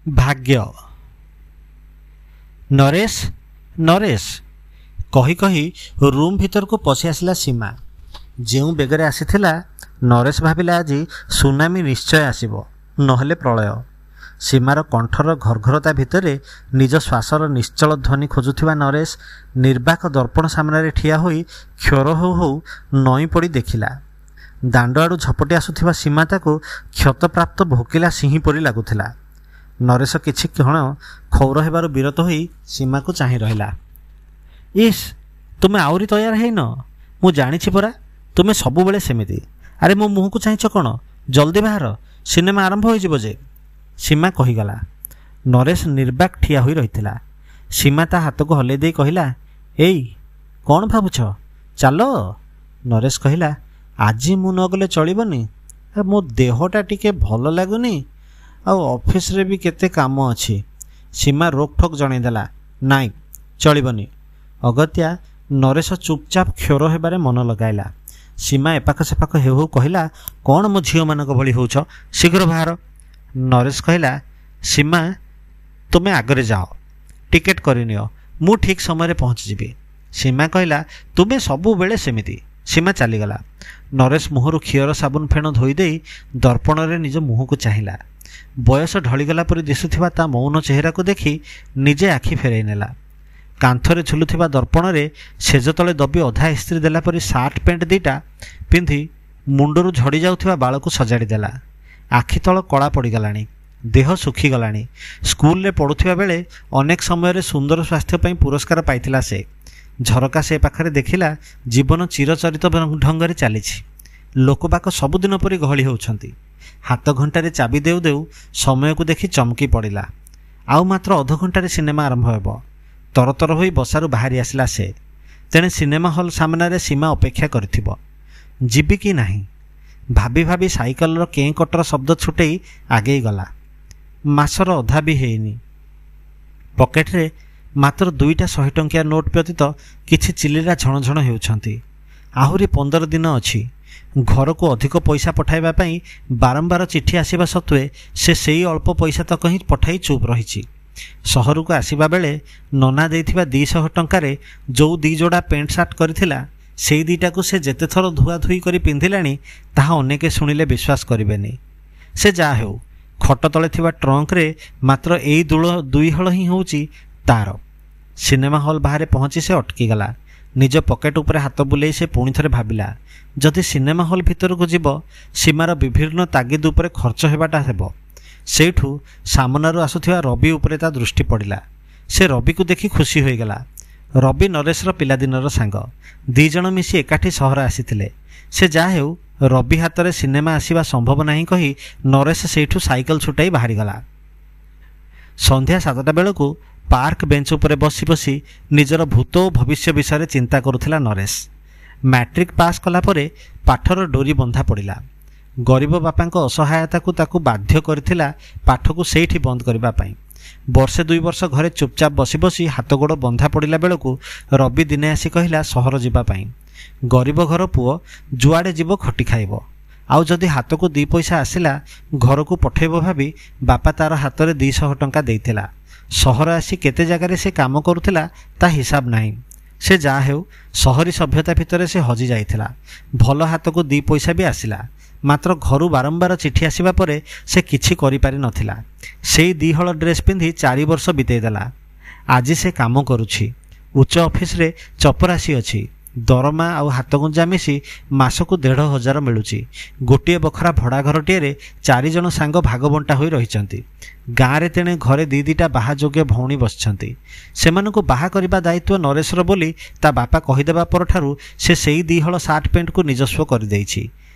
ଭାଗ୍ୟ। ନରେଶ, ନରେଶ କହି କହି ରୁମ୍ ଭିତରକୁ ପଶି ଆସିଲା ସୀମା। ଯେଉଁ ବେଗରେ ଆସିଥିଲା, ନରେଶ ଭାବିଲା ଆଜି ସୁନାମି ନିଶ୍ଚୟ ଆସିବ, ନହେଲେ ପ୍ରଳୟ। ସୀମାର କଣ୍ଠର ଘର୍ଘରତା ଭିତରେ ନିଜ ଶ୍ୱାସର ନିଶ୍ଚଳ ଧ୍ୱନି ଖୋଜୁଥିବା ନରେଶ ନିର୍ବାକ ଦର୍ପଣ ସାମ୍ନାରେ ଠିଆ ହୋଇ କ୍ଷର ହେଉ ହେଉ ନଇଁ ପଡ଼ି ଦେଖିଲା, ଦାଣ୍ଡ ଆଡ଼ୁ ଝପଟି ଆସୁଥିବା ସୀମା ତାକୁ କ୍ଷତପ୍ରାପ୍ତ ଭୋକିଲା ସିଂହୀ ପରି ଲାଗୁଥିଲା। ନରେଶ କିଛି କ୍ଷଣ କ୍ଷୌର ହେବାରୁ ବିରତ ହୋଇ ସୀମାକୁ ଚାହିଁ ରହିଲା। ଇସ୍, ତୁମେ ଆହୁରି ତୟାର ହେଇନ? ମୁଁ ଜାଣିଛି ପରା, ତୁମେ ସବୁବେଳେ ସେମିତି। ଆରେ, ମୋ ମୁହଁକୁ ଚାହିଁଛ କ'ଣ? ଜଲ୍ଦି ବାହାର, ସିନେମା ଆରମ୍ଭ ହୋଇଯିବ ଯେ। ସୀମା କହିଗଲା। ନରେଶ ନିର୍ବାକ ଠିଆ ହୋଇ ରହିଥିଲା। ସୀମା ତା ହାତକୁ ହଲେଇ ଦେଇ କହିଲା, ଏଇ କ'ଣ ଭାବୁଛ, ଚାଲ। ନରେଶ କହିଲା, ଆଜି ମୁଁ ନଗଲେ ଚଳିବନି, ମୋ ଦେହଟା ଟିକେ ଭଲ ଲାଗୁନି, ଆଉ ଅଫିସରେ ବି କେତେ କାମ ଅଛି। ସୀମା ରୋକଠୋକ୍ ଜଣେଇଦେଲା, ନାଇଁ ଚଳିବନି। ଅଗତ୍ୟା ନରେଶ ଚୁପଚାପ କ୍ଷୋର ହେବାରେ ମନ ଲଗାଇଲା। ସୀମା ଏପାଖ ସେପାଖ ହେଉ ହେଉ କହିଲା, କ'ଣ ମୋ ଝିଅମାନଙ୍କ ଭଳି ହେଉଛ, ଶୀଘ୍ର ବାହାର। ନରେଶ କହିଲା, ସୀମା ତୁମେ ଆଗରେ ଯାଅ, ଟିକେଟ୍ କରିନିଅ, ମୁଁ ଠିକ୍ ସମୟରେ ପହଞ୍ଚିଯିବି। ସୀମା କହିଲା, ତୁମେ ସବୁବେଳେ ସେମିତି। ସୀମା ଚାଲିଗଲା। ନରେଶ ମୁହଁରୁ କ୍ଷୀର ସାବୁନ ଫେଣ ଧୋଇଦେଇ ଦର୍ପଣରେ ନିଜ ମୁହଁକୁ ଚାହିଁଲା। ବୟସ ଢଳିଗଲା ପରି ଦିଶୁଥିବା ତା ମୌନ ଚେହେରାକୁ ଦେଖି ନିଜେ ଆଖି ଫେରାଇ ନେଲା। କାନ୍ଥରେ ଝୁଲୁଥିବା ଦର୍ପଣରେ ଶେଜ ତଳେ ଦବି ଅଧା ଇସ୍ତ୍ରୀ ଦେଲା ପରି ସାର୍ଟ ପ୍ୟାଣ୍ଟ ଦୁଇଟା ପିନ୍ଧି ମୁଣ୍ଡରୁ ଝଡ଼ି ଯାଉଥିବା ବାଳକୁ ସଜାଡ଼ି ଦେଲା। ଆଖି ତଳ କଳା ପଡ଼ିଗଲାଣି, ଦେହ ଶୁଖିଗଲାଣି। ସ୍କୁଲରେ ପଢ଼ୁଥିବା ବେଳେ ଅନେକ ସମୟରେ ସୁନ୍ଦର ସ୍ୱାସ୍ଥ୍ୟ ପାଇଁ ପୁରସ୍କାର ପାଇଥିଲା ସେ। ଝରକା ସେ ପାଖରେ ଦେଖିଲା ଜୀବନ ଚିରଚରିତ ଢଙ୍ଗରେ ଚାଲିଛି। ଲୋକବାକ ସବୁଦିନ ପରି ଗହଳି ହେଉଛନ୍ତି। ହାତ ଘଣ୍ଟାରେ ଚାବି ଦେଉ ଦେଉ ସମୟକୁ ଦେଖି ଚମକି ପଡ଼ିଲା। ଆଉ ମାତ୍ର ଅଧଘଣ୍ଟାରେ ସିନେମା ଆରମ୍ଭ ହେବ। ତରତର ହୋଇ ବସାରୁ ବାହାରି ଆସିଲା ସେ। ତେଣେ ସିନେମା ହଲ୍ ସାମ୍ନାରେ ସୀମା ଅପେକ୍ଷା କରିଥିବ। ଯିବି କି ନାହିଁ ଭାବି ଭାବି ସାଇକେଲର କେଁ କଟର ଶବ୍ଦ ଛୁଟେଇ ଆଗେଇ ଗଲା। ମାସର ଅଧା ବି ହେଇନି, ପକେଟରେ ମାତ୍ର 2ଟା 100 ଟଙ୍କିଆ ନୋଟ୍ ବ୍ୟତୀତ କିଛି ଚିଲିରା ଝଣଝଣ ହେଉଛନ୍ତି। ଆହୁରି 15 ଦିନ ଅଛି। ଘରକୁ ଅଧିକ ପଇସା ପଠାଇବା ପାଇଁ ବାରମ୍ବାର ଚିଠି ଆସିବା ସତ୍ତ୍ୱେ ସେ ସେଇ ଅଳ୍ପ ପଇସା ତକ ହିଁ ପଠାଇ ଚୁପ୍ ରହିଛି। ସହରକୁ ଆସିବା ବେଳେ ନନା ଦେଇଥିବା 200 ଟଙ୍କାରେ ଯେଉଁ 2 ଯୋଡ଼ା ପ୍ୟାଣ୍ଟ ସାର୍ଟ କରିଥିଲା, ସେଇ 2ଟାକୁ ସେ ଯେତେଥର ଧୁଆଧୁଇ କରି ପିନ୍ଧିଲାଣି ତାହା ଅନେକେ ଶୁଣିଲେ ବିଶ୍ୱାସ କରିବେନି। ସେ ଯାହା ହେଉ, ଖଟ ତଳେ ଥିବା ଟ୍ରଙ୍କରେ ମାତ୍ର ଏଇ 2 ହଳ ହିଁ ହେଉଛି ତାର। ସିନେମା ହଲ୍ ବାହାରେ ପହଞ୍ଚି ସେ ଅଟକିଗଲା। ନିଜ ପକେଟ ଉପରେ ହାତ ବୁଲେଇ ସେ ପୁଣି ଥରେ ଭାବିଲା, ଯଦି ସିନେମା ହଲ୍ ଭିତରକୁ ଯିବ, ସୀମାର ବିଭିନ୍ନ ତାଗିଦ ଉପରେ ଖର୍ଚ୍ଚ ହେବାଟା ହେବ। ସେଇଠୁ ସାମନାରୁ ଆସୁଥିବା ରବି ଉପରେ ତା ଦୃଷ୍ଟି ପଡ଼ିଲା। ସେ ରବିକୁ ଦେଖି ଖୁସି ହୋଇଗଲା। ରବି ନରେଶର ପିଲାଦିନର ସାଙ୍ଗ। 2 ଜଣ ମିଶି ଏକାଠି ସହର ଆସିଥିଲେ। ସେ ଯାହା ହେଉ, ରବି ହାତରେ ସିନେମା ଆସିବା ସମ୍ଭବ ନାହିଁ କହି ନରେଶ ସେଇଠୁ ସାଇକେଲ ଛୁଟାଇ ବାହାରିଗଲା। ସନ୍ଧ୍ୟା 7ଟା ବେଳକୁ ପାର୍କ ବେଞ୍ଚ ଉପରେ ବସି ବସି ନିଜର ଭୂତ ଓ ଭବିଷ୍ୟ ବିଷୟରେ ଚିନ୍ତା କରୁଥିଲା ନରେଶ। ମ୍ୟାଟ୍ରିକ୍ ପାସ୍ କଲା ପରେ ପାଠର ଡୋରି ବନ୍ଧା ପଡ଼ିଲା। ଗରିବ ବାପାଙ୍କ ଅସହାୟତାକୁ ତାକୁ ବାଧ୍ୟ କରିଥିଲା ପାଠକୁ ସେଇଠି ବନ୍ଦ କରିବା ପାଇଁ। ବର୍ଷେ 2 ବର୍ଷ ଘରେ ଚୁପଚାପ ବସି ବସି ହାତ ଗୋଡ଼ ବନ୍ଧା ପଡ଼ିଲା ବେଳକୁ ରବି ଦିନେ ଆସି କହିଲା ସହର ଯିବା ପାଇଁ। ଗରିବ ଘର ପୁଅ, ଯୁଆଡ଼େ ଯିବ ଖଟି ଖାଇବ, ଆଉ ଯଦି ହାତକୁ 2 ପଇସା ଆସିଲା ଘରକୁ ପଠେଇବ ଭାବି ବାପା ତାର ହାତରେ 200 ଟଙ୍କା ଦେଇଥିଲା। ସହର ଆସି କେତେ ଜାଗାରେ ସେ କାମ କରୁଥିଲା ତା ହିସାବ ନାହିଁ। ସେ ଯାହା ହେଉ, ସହରୀ ସଭ୍ୟତା ଭିତରେ ସେ ହଜି ଯାଇଥିଲା। ଭଲ ହାତକୁ 2 ପଇସା ବି ଆସିଲା, ମାତ୍ର ଘରୁ ବାରମ୍ବାର ଚିଠି ଆସିବା ପରେ ସେ କିଛି କରିପାରି ନଥିଲା। ସେଇ 2 ହଳ ଡ୍ରେସ୍ ପିନ୍ଧି 4 ବର୍ଷ ବିତେଇ ଦେଲା। ଆଜି ସେ କାମ କରୁଛି, ଉଚ୍ଚ ଅଫିସରେ ଚପରାସି ଅଛି। ଦରମା ଆଉ ହାତଗୁଞ୍ଜା ମିଶି ମାସକୁ 1500 ମିଳୁଛି। ଗୋଟିଏ ବଖରା ଭଡ଼ା ଘରଟିଏରେ 4 ଜଣ ସାଙ୍ଗ ଭାଗବଣ୍ଟା ହୋଇ ରହିଛନ୍ତି। ଗାଁରେ ତେଣେ ଘରେ 2 2ଟା ବାହା ଯୋଗ୍ୟ ଭଉଣୀ ବସିଛନ୍ତି। ସେମାନଙ୍କୁ ବାହା କରିବା ଦାୟିତ୍ୱ ନରେଶର ବୋଲି ତା ବାପା କହିଦେବା ପରଠାରୁ ସେ ସେଇ 2 ହଳ ସାର୍ଟ ପ୍ୟାଣ୍ଟକୁ ନିଜସ୍ୱ କରିଦେଇଛି।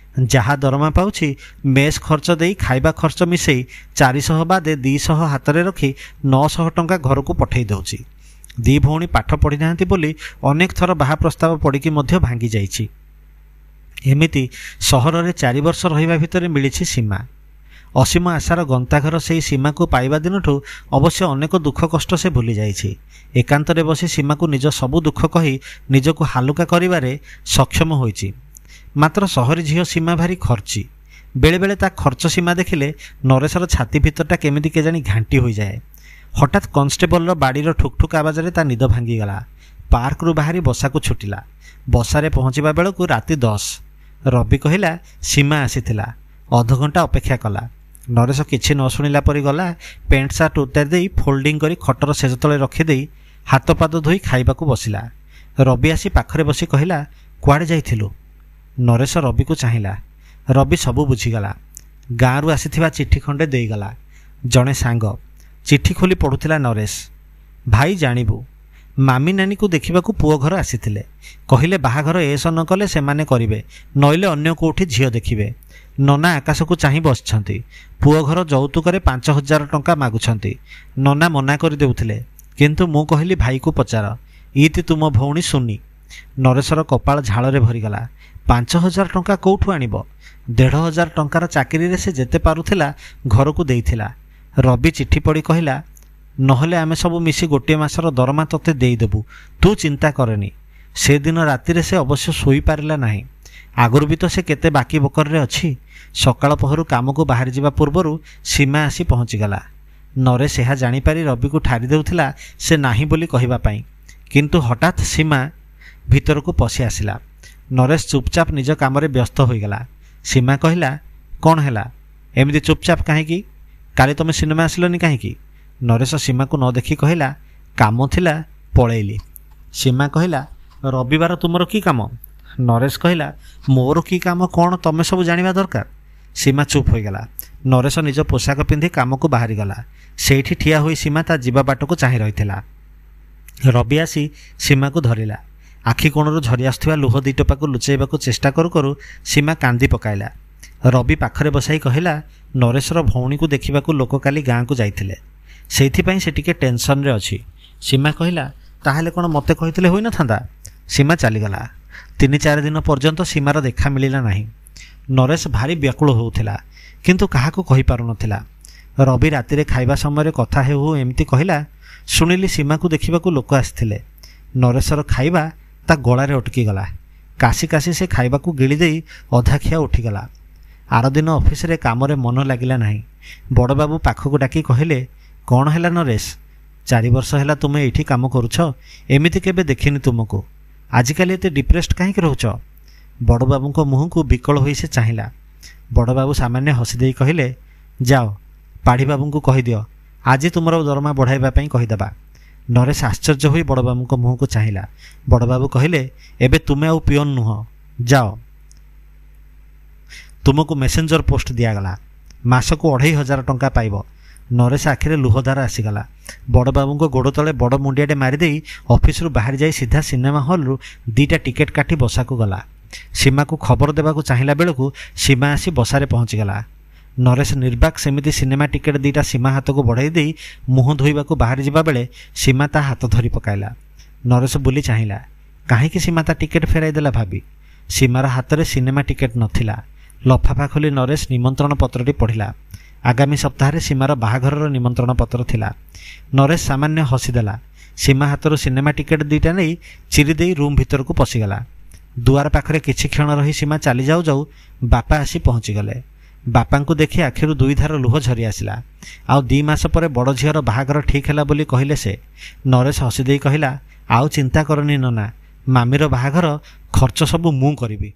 ଯାହା ଦରମା ପାଉଛି, ମେସ୍ ଖର୍ଚ୍ଚ ଦେଇ ଖାଇବା ଖର୍ଚ୍ଚ ମିଶେଇ 400 ବାଦେ 200 ହାତରେ ରଖି 900 ଟଙ୍କା ଘରକୁ ପଠେଇ ଦେଉଛି। 2 ଭଉଣୀ ପାଠ ପଢ଼ିନାହାନ୍ତି ବୋଲି ଅନେକ ଥର ବାହା ପ୍ରସ୍ତାବ ପଡ଼ିକି ମଧ୍ୟ ଭାଙ୍ଗି ଯାଇଛି। ଏମିତି ସହରରେ 4 ବର୍ଷ ରହିବା ଭିତରେ ମିଳିଛି ସୀମା। ଅସୀମ ଆଶାର ଗନ୍ତାଘର ସେଇ ସୀମାକୁ ପାଇବା ଦିନଠୁ ଅବଶ୍ୟ ଅନେକ ଦୁଃଖ କଷ୍ଟ ସେ ଭୁଲି ଯାଇଛି। ଏକାନ୍ତରେ ବସି ସୀମାକୁ ନିଜ ସବୁ ଦୁଃଖ କହି ନିଜକୁ ହାଲୁକା କରିବାରେ ସକ୍ଷମ ହୋଇଛି। ମାତ୍ର ସହରୀ ଝିଅ ସୀମା ଭାରି ଖର୍ଚ୍ଚି। ବେଳେବେଳେ ତା ଖର୍ଚ୍ଚ ସୀମା ଦେଖିଲେ ନରେଶର ଛାତି ଭିତରଟା କେମିତି କେଜାଣି ଘାଣ୍ଟି ହୋଇଯାଏ। ହଠାତ୍ କନଷ୍ଟେବଲର ବାଡ଼ିର ଠୁକ୍ଠୁକ୍ ଆବାଜରେ ତା ନିଦ ଭାଙ୍ଗିଗଲା। ପାର୍କରୁ ବାହାରି ବସାକୁ ଛୁଟିଲା। ବସାରେ ପହଞ୍ଚିବା ବେଳକୁ ରାତି 10। ରବି କହିଲା, ସୀମା ଆସିଥିଲା, ଅଧଘଣ୍ଟା ଅପେକ୍ଷା କଲା। ନରେଶ କିଛି ନ ଶୁଣିଲା ପରି ଗଲା। ପ୍ୟାଣ୍ଟ ସାର୍ଟ ଉତାରି ଦେଇ ଫୋଲ୍ଡିଂ କରି ଖଟର ଶେଯ ତଳେ ରଖିଦେଇ ହାତ ପାଦ ଧୋଇ ଖାଇବାକୁ ବସିଲା। ରବି ଆସି ପାଖରେ ବସି କହିଲା, କୁଆଡ଼େ ଯାଇଥିଲୁ? ନରେଶ ରବିକୁ ଚାହିଁଲା। ରବି ସବୁ ବୁଝିଗଲା। ଗାଁରୁ ଆସିଥିବା ଚିଠି ଖଣ୍ଡେ ଦେଇଗଲା ଜଣେ ସାଙ୍ଗ। ଚିଠି ଖୋଲି ପଢ଼ୁଥିଲା ନରେଶ। ଭାଇ ଜାଣିବୁ, ମାମି ନାନୀକୁ ଦେଖିବାକୁ ପୁଅ ଘର ଆସିଥିଲେ। କହିଲେ ବାହାଘର ଏସ ନ କଲେ ସେମାନେ କରିବେ, ନଇଲେ ଅନ୍ୟ କେଉଁଠି ଝିଅ ଦେଖିବେ। ନନା ଆକାଶକୁ ଚାହିଁ ବସିଛନ୍ତି। ପୁଅ ଘର ଯୌତୁକରେ 5000 ଟଙ୍କା ମାଗୁଛନ୍ତି। ନନା ମନା କରିଦେଉଥିଲେ, କିନ୍ତୁ ମୁଁ କହିଲି ଭାଇକୁ ପଚାର। ଇତି ତୁମ ଭଉଣୀ ସୁନି। ନରେଶର କପାଳ ଝାଳରେ ଭରିଗଲା। 5000 ଟଙ୍କା କେଉଁଠୁ ଆଣିବ? 1500 ଟଙ୍କାର ଚାକିରିରେ ସେ ଯେତେ ପାରୁଥିଲା ଘରକୁ ଦେଇଥିଲା। ରବି ଚିଠି ପଢ଼ି କହିଲା, ନହେଲେ ଆମେ ସବୁ ମିଶି ଗୋଟିଏ ମାସର ଦରମା ତୋତେ ଦେଇଦେବୁ, ତୁ ଚିନ୍ତା କରେନି। ସେଦିନ ରାତିରେ ସେ ଅବଶ୍ୟ ଶୋଇପାରିଲା ନାହିଁ। ଆଗରୁ ବି ତ ସେ କେତେ ବାକି ବକରରେ ଅଛି। ସକାଳ ପହରୁ କାମକୁ ବାହାରିଯିବା ପୂର୍ବରୁ ସୀମା ଆସି ପହଞ୍ଚିଗଲା। ନରେଶ ଏହା ଜାଣିପାରି ରବିକୁ ଠାରି ଦେଉଥିଲା ସେ ନାହିଁ ବୋଲି କହିବା ପାଇଁ। କିନ୍ତୁ ହଠାତ୍ ସୀମା ଭିତରକୁ ପଶି ଆସିଲା। ନରେଶ ଚୁପଚାପ ନିଜ କାମରେ ବ୍ୟସ୍ତ ହୋଇଗଲା। ସୀମା କହିଲା, କ'ଣ ହେଲା, ଏମିତି ଚୁପଚାପ କାହିଁକି? କାଲି ତୁମେ ସିନେମା ଆସିଲନି କାହିଁକି? ନରେଶ ସୀମାକୁ ନ ଦେଖି କହିଲା, କାମ ଥିଲା ପଳେଇଲି। ସୀମା କହିଲା, ରବିବାର ତୁମର କି କାମ? ନରେଶ କହିଲା, ମୋର କି କାମ କ'ଣ ତମେ ସବୁ ଜାଣିବା ଦରକାର। ସୀମା ଚୁପ୍ ହୋଇଗଲା। ନରେଶ ନିଜ ପୋଷାକ ପିନ୍ଧି କାମକୁ ବାହାରିଗଲା। ସେଇଠି ଠିଆ ହୋଇ ସୀମା ତା ଯିବା ବାଟକୁ ଚାହିଁ ରହିଥିଲା। ରବି ଆସି ସୀମାକୁ ଧରିଲା। ଆଖି କୋଣରୁ ଝରି ଆସୁଥିବା ଲୁହ ଦୁଇ ଟୋପାକୁ ଲୁଚାଇବାକୁ ଚେଷ୍ଟା କରୁ କରୁ ସୀମା କାନ୍ଦି ପକାଇଲା। ରବି ପାଖରେ ବସାଇ କହିଲା, ନରେଶର ଭଉଣୀକୁ ଦେଖିବାକୁ ଲୋକ କାଲି ଗାଁକୁ ଯାଇଥିଲେ, ସେଇଥିପାଇଁ ସେ ଟିକେ ଟେନସନ୍ରେ ଅଛି। ସୀମା କହିଲା, ତାହେଲେ କ'ଣ ମୋତେ କହିଥିଲେ ହୋଇନଥାନ୍ତା? ସୀମା ଚାଲିଗଲା। 3-4 ଦିନ ପର୍ଯ୍ୟନ୍ତ ସୀମାର ଦେଖା ମିଳିଲା ନାହିଁ। ନରେଶ ଭାରି ବ୍ୟାକୁଳ ହେଉଥିଲା, କିନ୍ତୁ କାହାକୁ କହିପାରୁନଥିଲା। ରବି ରାତିରେ ଖାଇବା ସମୟରେ କଥା ହେଉ ହେଉ ଏମିତି କହିଲା, ଶୁଣିଲି ସୀମାକୁ ଦେଖିବାକୁ ଲୋକ ଆସିଥିଲେ। ନରେଶର ଖାଇବା ତା ଗଳାରେ ଅଟକିଗଲା। କାଶି କାଶି ସେ ଖାଇବାକୁ ଗିଳିଦେଇ ଅଧା ଖିଆ ଉଠିଗଲା। ଆରଦିନ ଅଫିସରେ କାମରେ ମନ ଲାଗିଲା ନାହିଁ। ବଡ଼ବାବୁ ପାଖକୁ ଡାକି କହିଲେ, କ'ଣ ହେଲା ନରେଶ? 4 ବର୍ଷ ହେଲା ତୁମେ ଏଇଠି କାମ କରୁଛ, ଏମିତି କେବେ ଦେଖିନି ତୁମକୁ। ଆଜିକାଲି ଏତେ ଡିପ୍ରେସ୍ଡ କାହିଁକି ରହୁଛ? ବଡ଼ବାବୁଙ୍କ ମୁହଁକୁ ବିକଳ ହୋଇ ସେ ଚାହିଁଲା। ବଡ଼ବାବୁ ସାମାନ୍ୟ ହସିଦେଇ କହିଲେ, ଯାଅ ପାଢ଼ୀବାବୁଙ୍କୁ କହିଦିଅ ଆଜି ତୁମର ଦରମା ବଢ଼ାଇବା ପାଇଁ କହିଦେବା। ନରେଶ ଆଶ୍ଚର୍ଯ୍ୟ ହୋଇ ବଡ଼ବାବୁଙ୍କ ମୁହଁକୁ ଚାହିଁଲା। ବଡ଼ବାବୁ କହିଲେ, ଏବେ ତୁମେ ଆଉ ପିଅନ ନୁହଁ, ଯାଅ, ତୁମକୁ ମେସେଞ୍ଜର ପୋଷ୍ଟ ଦିଆଗଲା, ମାସକୁ 2500 ଟଙ୍କା ପାଇବ। ନରେଶ ଆଖିରେ ଲୁହଧାର ଆସିଗଲା। ବଡ଼ବାବୁଙ୍କ ଗୋଡ଼ ତଳେ ବଡ଼ ମୁଣ୍ଡିଆଟେ ମାରିଦେଇ ଅଫିସରୁ ବାହାରି ଯାଇ ସିଧା ସିନେମା ହଲ୍ରୁ 2ଟା ଟିକେଟ୍ କାଟି ବସାକୁ ଗଲା। ସୀମାକୁ ଖବର ଦେବାକୁ ଚାହିଁଲା ବେଳକୁ ସୀମା ଆସି ବସାରେ ପହଞ୍ଚିଗଲା। ନରେଶ ନିର୍ବାକ ସେମିତି ସିନେମା ଟିକେଟ୍ 2ଟା ସୀମା ହାତକୁ ବଢ଼ାଇ ଦେଇ ମୁହଁ ଧୋଇବାକୁ ବାହାରି ଯିବା ବେଳେ ସୀମା ତା ହାତ ଧରି ପକାଇଲା। ନରେଶ ବୁଲି ଚାହିଁଲା, କାହିଁକି ସୀମା ତା ଟିକେଟ୍ ଫେରାଇ ଦେଲା ଭାବି। ସୀମାର ହାତରେ ସିନେମା ଟିକେଟ୍ ନଥିଲା। ଲଫାଫା ଖୋଲି ନରେଶ ନିମନ୍ତ୍ରଣ ପତ୍ରଟି ପଢ଼ିଲା। ଆଗାମୀ ସପ୍ତାହରେ ସୀମାର ବାହାଘରର ନିମନ୍ତ୍ରଣ ପତ୍ର ଥିଲା। ନରେଶ ସାମାନ୍ୟ ହସିଦେଲା। ସୀମା ହାତରୁ ସିନେମା ଟିକେଟ୍ 2ଟା ନେଇ ଚିରିଦେଇ ରୁମ୍ ଭିତରକୁ ପଶିଗଲା। ଦୁଆର ପାଖରେ କିଛି କ୍ଷଣ ରହି ସୀମା ଚାଲି ଯାଉ ଯାଉ ବାପା ଆସି ପହଞ୍ଚିଗଲେ। ବାପାଙ୍କୁ ଦେଖି ଆଖିରୁ 2 ଧାର ଲୁହ ଝରି ଆସିଲା। ଆଉ 2 ମାସ ପରେ ବଡ଼ ଝିଅର ବାହାଘର ଠିକ୍ ହେଲା ବୋଲି କହିଲେ ସେ। ନରେଶ ହସିଦେଇ କହିଲା, ଆଉ ଚିନ୍ତା କରନି ନନା, ମାମିର ବାହାଘର ଖର୍ଚ୍ଚ ସବୁ ମୁଁ କରିବି।